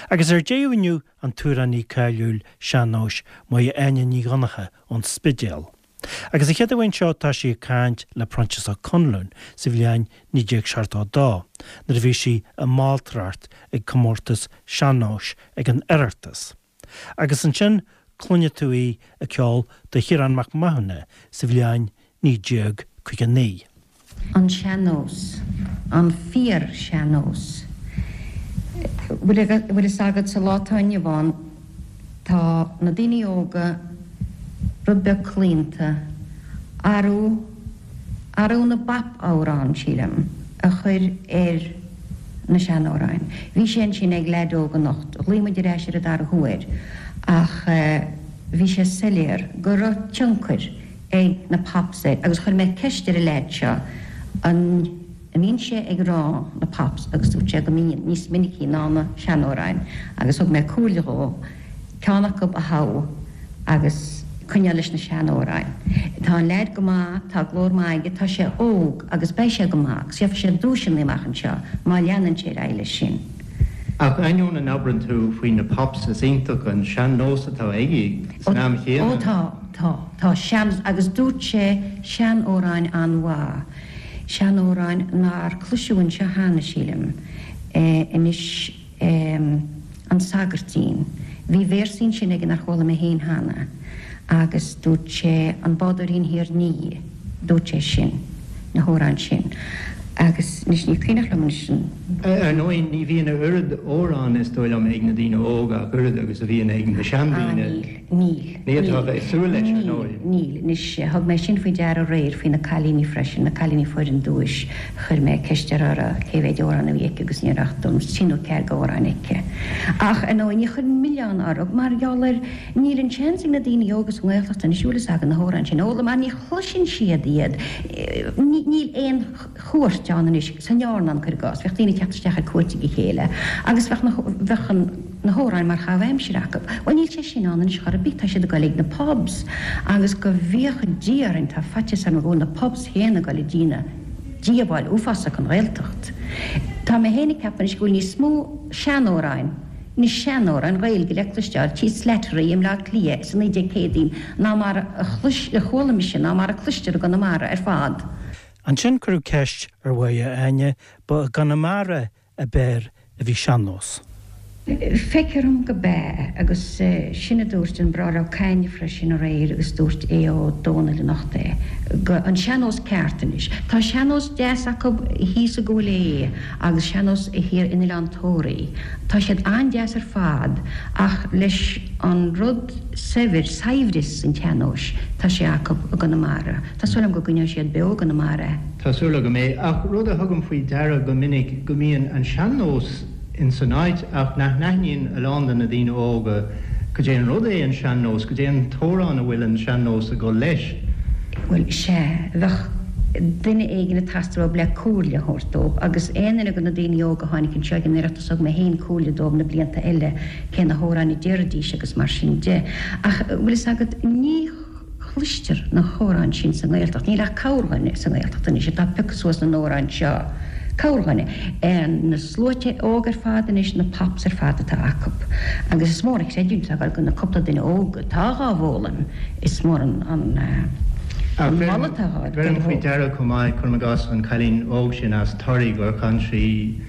Agus ar deireadh inniu an t-amhránaí cáiliúil sean-nóis Máire Áine Ní Dhonncha ón Spidéal. Agus an chéad amháin seo tá sí ag caint le Proinsias Ó Conluain sa bhliain 1972 nuair a bhí sí i mBaltracht ag comórtas sean-nóis ag an Oireachtas. Agus ansin cluinfidh tú í ag ceol do Chiarán Mac Mathúna sa bhliain 1959. An sean-nós. An fíor-shean-nós. Bhfuil fhios agat, sa lá atá inniu ann, tá na daoine óga rud beag claonta, arú, arú na bpop-amhrán, sílim, a chur ar na seanamhráin. Bhí sé ansin ag leaid óg anocht, ghlaoigh muid ar ais air an dara huair, ach bhí sé soiléir go raibh tionchar ag na pops air agus chuir mé ceist ar an leaid seo an mbíonn sé ag rá na pops agus dúirt sé go mbíonn, níos minicí ná na seanamhráin agus thug mé comhairle dhó ceann acu a thoghadh agus coinneáil leis na seanamhráin. Tá an leaid go maith, tá glór maith aige, tá sé óg agus beidh sé go maith agus gheobhaidh sé duaiseanna amach anseo má leanann sé ar aghaidh leis sin. Ach ainneoin a n-abrann tú faoi na pops is iontach an sean-nós atá aige san am chéanna. Ó tá. Tá. Tá sean, agus dúirt sé seanamhráin an-mhaith. Seanamhráin nár cloiseadh anseo cheana, sílim. Anois, An Sagairtín. Bhí véarsaí ansin aige nár chuala mé féin cheana. Agus dúirt sé An Bádóirín Thiar Nighe. Dúirt sé sin. Na hamhráin sin. Agus anois ní cuimhneach liom anois an. Ar ndóigh, ní bhíonn a oiread amhrán, is dóigh liom, ag na daoine óga ach oiread agus a bhíonn ag na seandaoine. Ah, níl. Níl. Ní fhéadfá a bheith ag súil leis, ar ndóigh. Níl. Anois, thug mé sin faoi deara aréir faoi na cailíní freisin, na cailíní a fuair an duais, chuir mé ceist uirthi cé mhéid amhrán a bhí aici agus ní raibh ach trí nó ceathair d'amhráin aici. Ach, ar ndóigh, ní chuireann milleán orthu mar gheall ar, níl an seans ag na daoine óga sa nGaeltacht anois, bhfuil fhios agat, na hamhráin sin a fhoghlaim mar ní chloiseann siad iad. Níl aon. chuairt ann anois, san airneán, cuir i gcás, bheadh daoine ag teacht isteach ar cuairt ag a chéile agus bheadh na, bheadh an, na hamhráin mar chaitheamh aimsire acu. Bhuel níl sé sin ann anois chor ar bith, tá siad ag goil ag na pubs agus go bhféacha Dia orainn tá faitíos orm go bhfuil na pubs féin ag goil ag déanamh díobháil uafásach don Ghaeltacht. Tá mé féin ag ceapadh anois go bhfuil níos mó seanamhráin, na seanamhráin Ghaeilge le cloisteáil tí Slattery i mBleá Cliath sa 1900idí ná mar a chlois, a chuala mise, ná mar a cloistear i gConamara ar fad. Ansin cuireadh ceist ar Mháire Áine, ba i gConamara ab fhearr a bhí sean-nós. Feictear dom go b'ea, agus sin a dúirt an Bráthair Ó Cadhain freisin aréir agus dúirt Aodh Ó Dónaill anocht é, go, an sean-nós ceart anois. Tá sean-nós deas acu thíos i gCúil Aodha agus sean-nós thiar in Oileán Tóraí. Tá siad an-deas ar fad ach leis an rud saibhir, saibhreas an tsean-nóis, tá sé acu i gConamara. Tá súil agam go gcoinneoidh siad beo i gConamara é. Tá súil agam é. Ach rud a thugaim faoi deara go minic go mbíonn an sean-nós in san áit ach nach n-aithníonn a lán de na daoine óga cad é an rud é an sean-nós, cad é an t-amhrán a bhfuil an sean-nós ag dul leis. Bhuel, sea, bheadh duine éigin ag teastáil uathu le comhairle a thabhairt dóibh agus aon duine de na daoine óga a tháinig anseo ag an Oireachtas thug mé féin comhairle dóibh na blianta eile cé na hamhráin a déarfaidís agus mar sin de. Ach, bhfuil fhios agat, ní. chloistear na hamhráin sin sa nGaeltacht. Níl ach corrdhuine sa nGaeltacht anois atá pioctha suas na n-amhráin seo. Corrdhuine. Na sluaite óg ar fad anois, na pops ar fad atá acu. Agus is mór an chreidiúint atá ag dul do na cúpla duine óg atá dhá bhfoghlaim. Is mór an moladh atá dhá Bheirim faoi deara chomh maith, cuirim i gcás, an cailín óg sin as Toraigh gur chan sí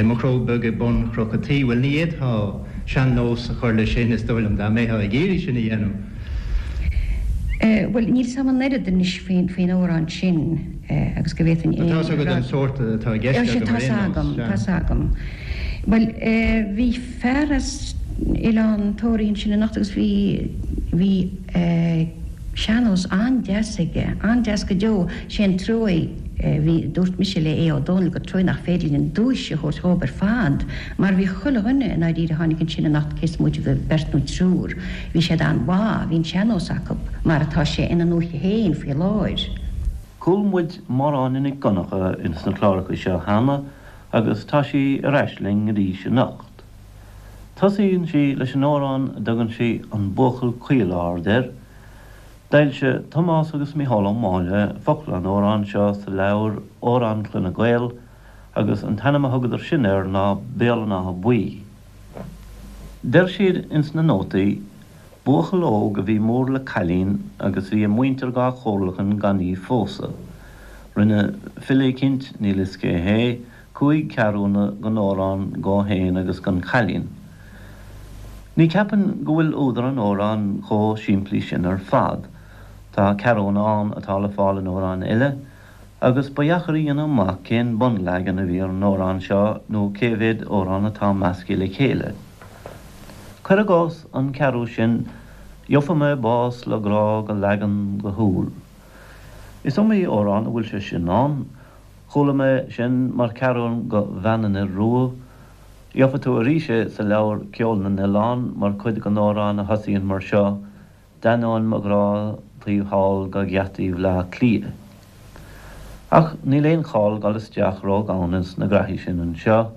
Mo Chró Beag ag Bun Chnoc a' Tí. Bhuel, ní fhéadfá sean-nós a chur leis sin, is dóigh liom, dá mbeifeá ag iarraidh sin a dhéanamh. Bhuel, níl 's a'm an oiread anois faoin amhrán sin agus go bhféadfainn aon rud. Tá 's agat an sórt atá i gceist agam ar aon nós. Tá 's agam. Bhuel, bhí fear as Oileán Tóraí ansin anocht agus bhí, bhí sean-nós an-deas aige, an-deas go deo. Sé an truaigh, bhí, dúirt mise le Aodh Ó Dónaill gur truaigh nach féidir linn an duais a thabhairt dhób ar fad mar bhí chuile dhuine i ndáiríre a tháinig ansin anocht cé is móite de bheirt nó triúr, Bhí siad an-mhaith, bhí an sean-nós acu, mar atá sé ina ndúiche féin faoi láthair. Chuala muid Máire Áine Nic Dhonncha ins na cláracha seo cheana agus tá sí ar ais linn arís anocht. Tosaíonn sí leis an amhrán a dtugann sí 'An Buachaill Caol Ard' air. D'fhoilsigh Tomás agus Mícheál Ó Máille focla an amhráin seo sa leabhar Amhráin Chloinne Gael agus an t-ainm a thugadar sin air ná Béal an Átha Buí. Deir siad ins na nótaí, buachaill óg a bhí mór le cailín agus bhí a muintir dhá chomhairleachan gan í phósadh. Rinne file eicínt, níl fhios cé hé, chúig ceathrúna gon amhrán dhó fhéin agus gon chailín. Ní cheapainn go bhfuil údar an amhráin chomh simplí sin ar fad. Tá ceathrúna ann atá le fáil in amhráin eile, agus ba dheacair a dhéanamh amach cén bunleagan a bhí ar an amhrán seo nó cé mhéad amhrán atá measctha le chéile. Cuir i gcás an ceathrú sin, Gheofa mé bás le grá go leagan go shúil. Is iomaí amhrán a bhfuil sé sin ann. Chuala mé sin mar cheathrún go Bhean an Fhir Rua. Gheofa tú arís é sa leabhar Ceol na nOileán mar chuid den amhrán a thosaíonn mar seo, D'ainneoin mo ghrá taobh thall go gheataí Bhleá Cliath. Ach níl aon chall dul isteach ró-dhomhain ins na graithí sin anseo.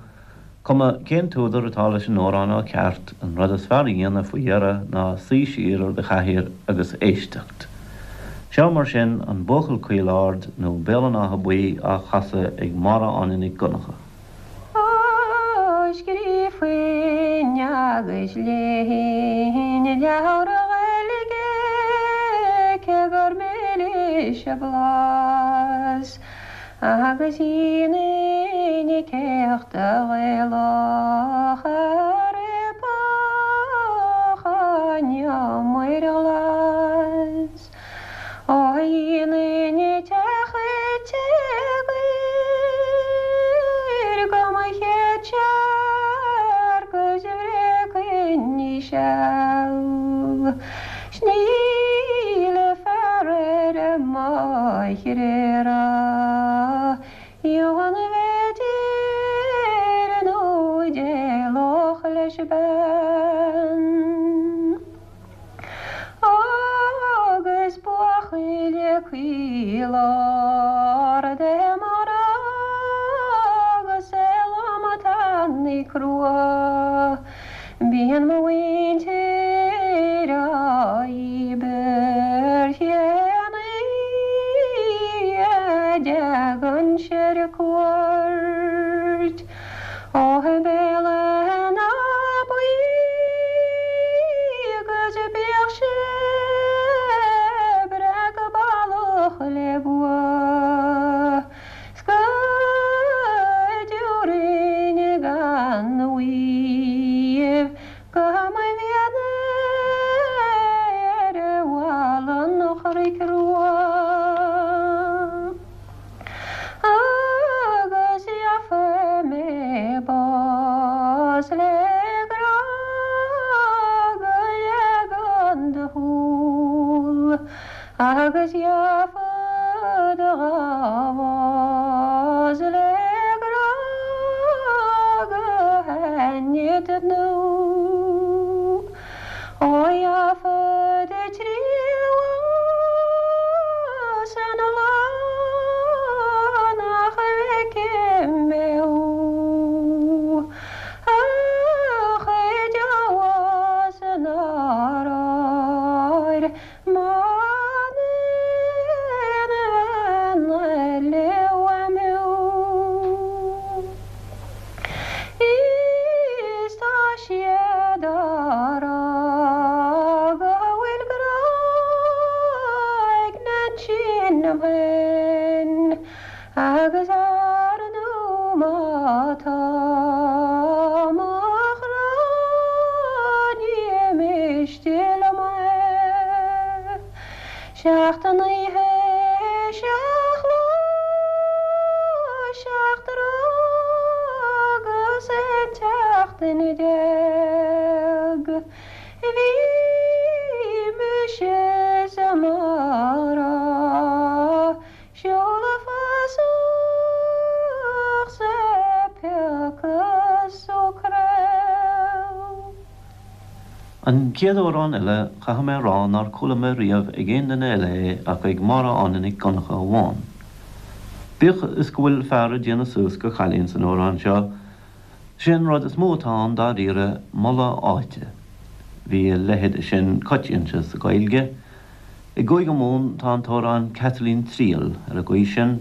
Cuma cén t-údar atá leis an amhrán ó cheart, an rud is fearr a dhéanamh faoi dheireadh ná suí siar ar do chathaoir agus éisteacht. Seo mar sin An Buachaill Caol Ard nó Béal an Átha Buí á chasadh ag Máire Áine Nic Dhonncha. Ó scríofainn agus léifinn leabhar Gaeilge cé gur milis a blas. Agus dhéanfainn céachta Ghaelach a ribeadh an iomaire ghlas. Ó dhéanfainn teach tíogair go mo chéad searc is bhreacfainn í seal. 'S níl fear ar an mbóithre a dheamhan a bhféidir nó d'éalódh leis bean. Agus buachaill caol ard é mo ghrá agus é lom tanaí crua. Bíonn mo mhuintir á dhíbirt cén oíche a dtagann sé ar cuairt ó Bhéal an Átha Buí agus bíodh sé breá go ballach le bua. 'S go dtiúrfainn gan mhaíomh go mo mhéana ar bhalla an Chnoic Rua. Agus gheofa mé bás le grá go leagan do shúl. Agus gheofad a bhás le grá go haithne do thnúth. Ó gheofad triúr san lá nach bhfeicfidh mé thú. Ach i dteagmhas nár áir M'aon bhean eile uaim thú. Is tá siad á rá go bhfuil grá ag Neainsín liom féin agus ar ndú má tá mo chrá ní miste liom é. Seacht n-oíche, seacht lá, seacht dtráth agus aon tseachtain Bhí mise sa mara. Seoladh fasach 's ag piocadh socrail. An chéad amhrán eile, caithfidh mé a rá nár chuala mé riamh ag aon duine eile é ach ag Máire Áine Nic Dhonncha amháin. Bíodh is go bhfuil fear ag déanamh suas go chailín san amhrán seo, sé an rud is mó atá ann dáiríre moladh áite. Bhí a leithéid sin coitianta sa Ghaeilge. I gCúige Mumhan tá an t-amhrán Caitlín Triall ar an gcaoi sin,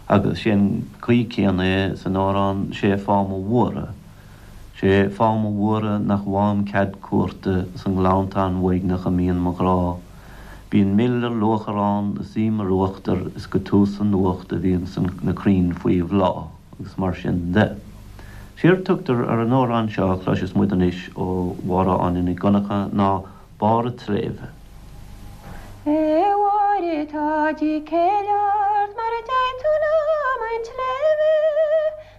agus sé an chaoi céanna é san amhrán Sé fáth mo bhuartha. Sé fáth mo bhuartha nach bhfaighim cead cuairte sa nGleanntán uaigneach a mbíonn mo ghrá. Bíonn mil ar luachair ann is im ar uachtar is go tús an nuacht a bhíonn na crainn faoi bhláth agus mar sin de. Séard tugtar ar an amhrán seo a chloisfeas muid anois ó Mháire Áine Nic Dhonncha ná Barr a' tSléibhe. A Mháire tá dícéill ort mara dtéidh tú liom 'un tsléibhe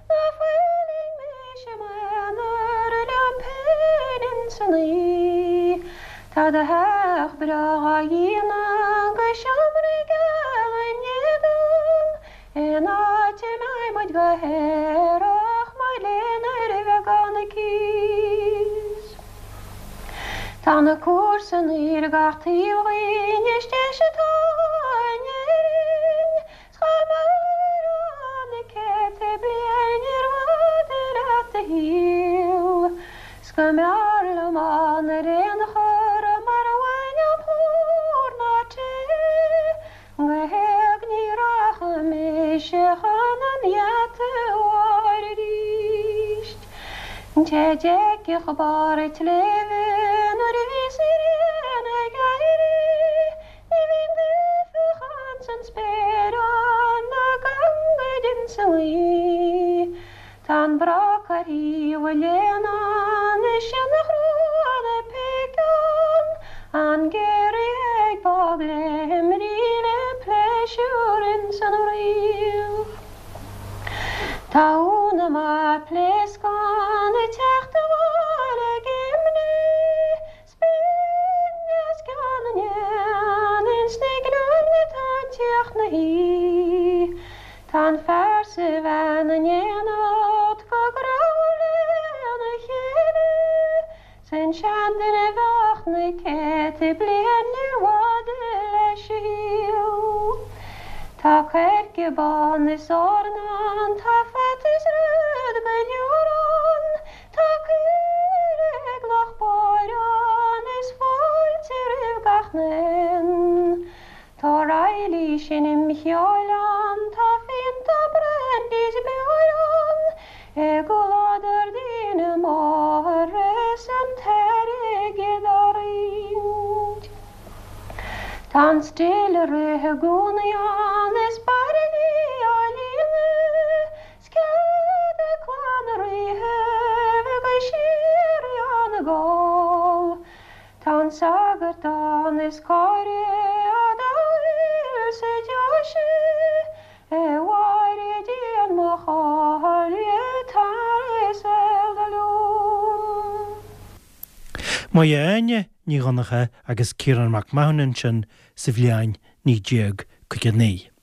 Ná fuiling mise i m'aonar liom féin ins an oíche. Tá do theach breá dhá dhíonadh 'gus seomraí geala in éadan, In áit a mbeidh muid go haerach mar linn ar bheagán cíos. Tá na comharsana ar gach taobh dhínn is deis atá in Éirinn 's dhá mairfeá na céadta bliain níorbh fhada leat do shaol 's go mb'fhearr liom ann ar aon chor mara bhfaighinn ná plúr ná tae Go héag ní rachaidh mise chun an gheata a Mháire arís. An té a d'fheicfeadh barr an tsléibhe nuair a bhíos an ghrian ag éirí, ní bhíonn duifeach ins an spéir ann ná gangaid ins an ngaoth. Tá an broc ar thaobh an léana ann is sionnach rua na péice ann, an giorria ag bogléimrigh le pléisiúr ins an fhraoch. Tá Úna mar pléascán ag teacht abhaile ag imní. 'S binn os cionn na n-éan ins na gleann atá ag tíocht 'na thí. Tá an fear 's a bhean in éineacht go grámhar lena chéile, 's an seanduine bheadh na céadta bliain níorbh fhada leis a shaol. Tá coirce bán is eorna ann, tá fata is rud go leor ann, Tá caoire ag Loch Báire ann is fáilte roimh gach n-aon. Tá Reilly seinm cheoil ann, tá fíonta brandy 's beoir ann, i gcomhluadar daoine móra is an t-airgead á roinnt. Tá an still ag rith i gcónaí ann is bairillí á líonadh 'S cead ag clann na ríthe bheith go síoraí ann ag ól. Tá an sagart ann is cóir dá bhfuil sa deoise, A Mháire déan mo chomhairle tar is eile liom. Máire Áine Ní Dhonncha agus Ciarán Mac Mathúna ansin sa bhliain 1959.